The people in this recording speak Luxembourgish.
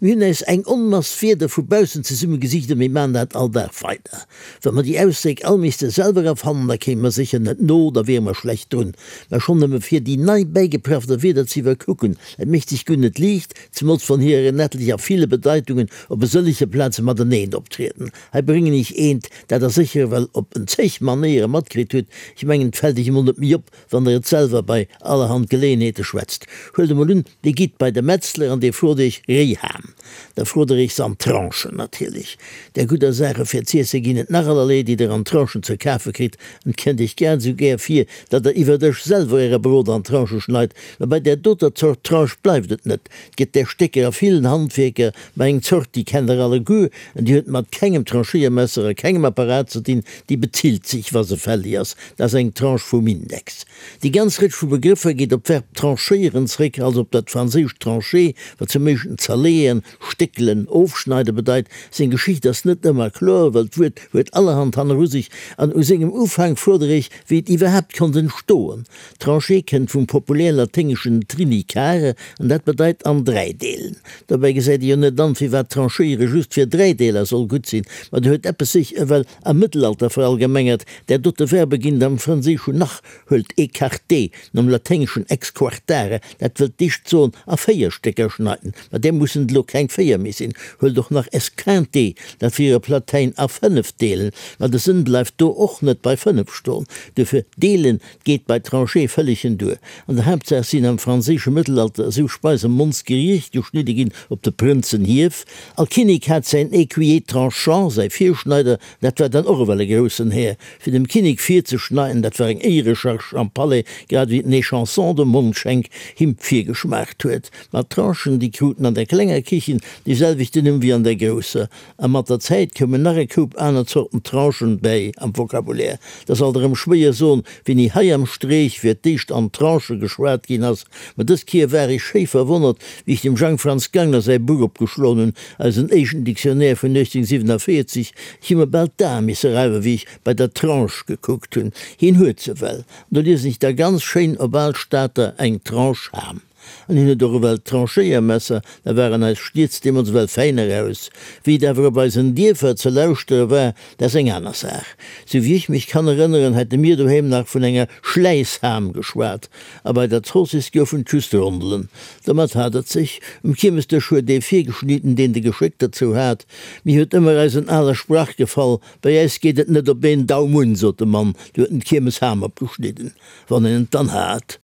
Mir hunn äis eng Onmass Wierder vu baussen zesumme gesicht a mir man dat all Dag weider. Wa mer déi Ausdréck all misste selwer erfannen, da kéime mer sécher net no, da wiere mer schlecht drun. Mä schonn nëmme fir déi nei bäigeprafter Wierder ze iwwerkucken, et mécht sech guer net liicht, zemools wann hirer en etlech a ville Bedeitungen op e sëllege Plaze mateneen optrieden. Hei bréngen ech eent, dat der sécher ewell op en zeg Manéiere matkritt hutt, ech mengen, et fält iech emol net méi op, Wann der et selwer bei allerhand Geleeënheete schwätzt. Huelt emol un, Dir gitt bei de Metzler an dee frot Iech Réiham. Da frot der Iech se an Tranchen natierlech. Där gudder Saache fir z'iesse ginn et nach allerlee, déi der an Tranchen ze kafe kritt. An et kënnt Iech grad esou gär vir, datt der iwwer Dësch selwer Äre Brot an Tranchë schneit. Mä bei där doter Zort Tranche bleift et net. Et gëtt där Stécker a villen Handwierker, mä eng Zort, déi kennt der alleguer an déi huet mat kengem Tranchéiermesser a kengem Apparat ze dinn, déi bezilt sech, wa se fällig ass. Dat ass eng Tranche vum Index. Déi ganz Rëtsch vu Begrëffer geet op d'Verb tranchéieren zréck, also op dat franséischt trancher, wat zum éischten zerleeën, stéckelen, ofschneiden bedeit. Seng Geschicht ass net ëmmer kloer, well d'Wuert huet allerhand hanneru sech an u sengem Ufank fuerdere ech, wéi et iwwerhaapt konnt entstoen. Trancher kënnt vum populär laténgeschen trinicare an dat bedeit an 3 deelen. Dobäi gesäit ee jo net an, firwat tranchéiere just fir 3 Deeler soll gutt sinn, ma do huet eppes sech ewell Am Mëttelalter verallgemengert, där dote Verbe ginn et am Franséischen nach, huelt écarter, nom laténgeschen exquartare, dat wëllt dicht soen a 4 Stécker schneiden, ma där mussen et elo keng 4 méi sinn, huelt och nach esquinter, dat wier e Platäin a 5 deelen, ma de Sënn bleift do och net bei 5 stoen, duerfir deelen geet bei trancher vëllegen duer. An der Haaptsaach sinn am franséische Mëttelalter esou Speise mondsgeriicht geschnidde ginn op de Prënzenhief. All Kinnek hat säin Écuyer tranchant, säi Virschneider, dat war dann och ewell e groussen Här. Fir dem Kinnek virzeschneiden, dat war eng Éierecharge am Palais, grad ewéi den Échanson de Mondschenk him virgeschmaacht huet. Ma d'Tranchen, déi kruten an der klenger Kichen dee selwechten Numm wéi an der grousser. A mat der Zäit koumen nach e Koup aner Zorten Tranchen bäi am Vocabulaire. 't ass alt erëm schwéier soen, wéini hei am Streech fir d'éischt an Tranchë geschwat ginn ass. Ma dës Kier war ech schéi verwonnert, wéi ech dem Jang Franz Gangler säi Buch opgeschloen hunn, eisen éischten Dictionnaire vun 1847. Ech hu mer bal d'Ae misse reiwen, wéi ech bei der Tranche gekuckt hunn. Hien huet se well. An do liesen ech da ganz schéin op al Stater eng Tranche Ham. An hien huet och ewell d'Tranchéiermesser, da waren eis Stierz deemools ewell fäin eraus. Wéi et awer op eisen Dierfer ze lauschtere war, dat ass eng aner Saach. Sou wéi ech mech kann erënneren, hätte mir doheem nach vun enger Schläissham geschwat, a bei der Zoossiss goufen et just Rondelen. Domat hat et sech. Um Kiermesdësch huet ee virgeschnidden, deen de Geschéck derzou hat. Mir huet ëmmer eisen ale Sprach gefall, Bei äis geet et net op een Daum un, sot de Mann, du huet en d'Kiermesham opgeschnidden, wann een et dann hat.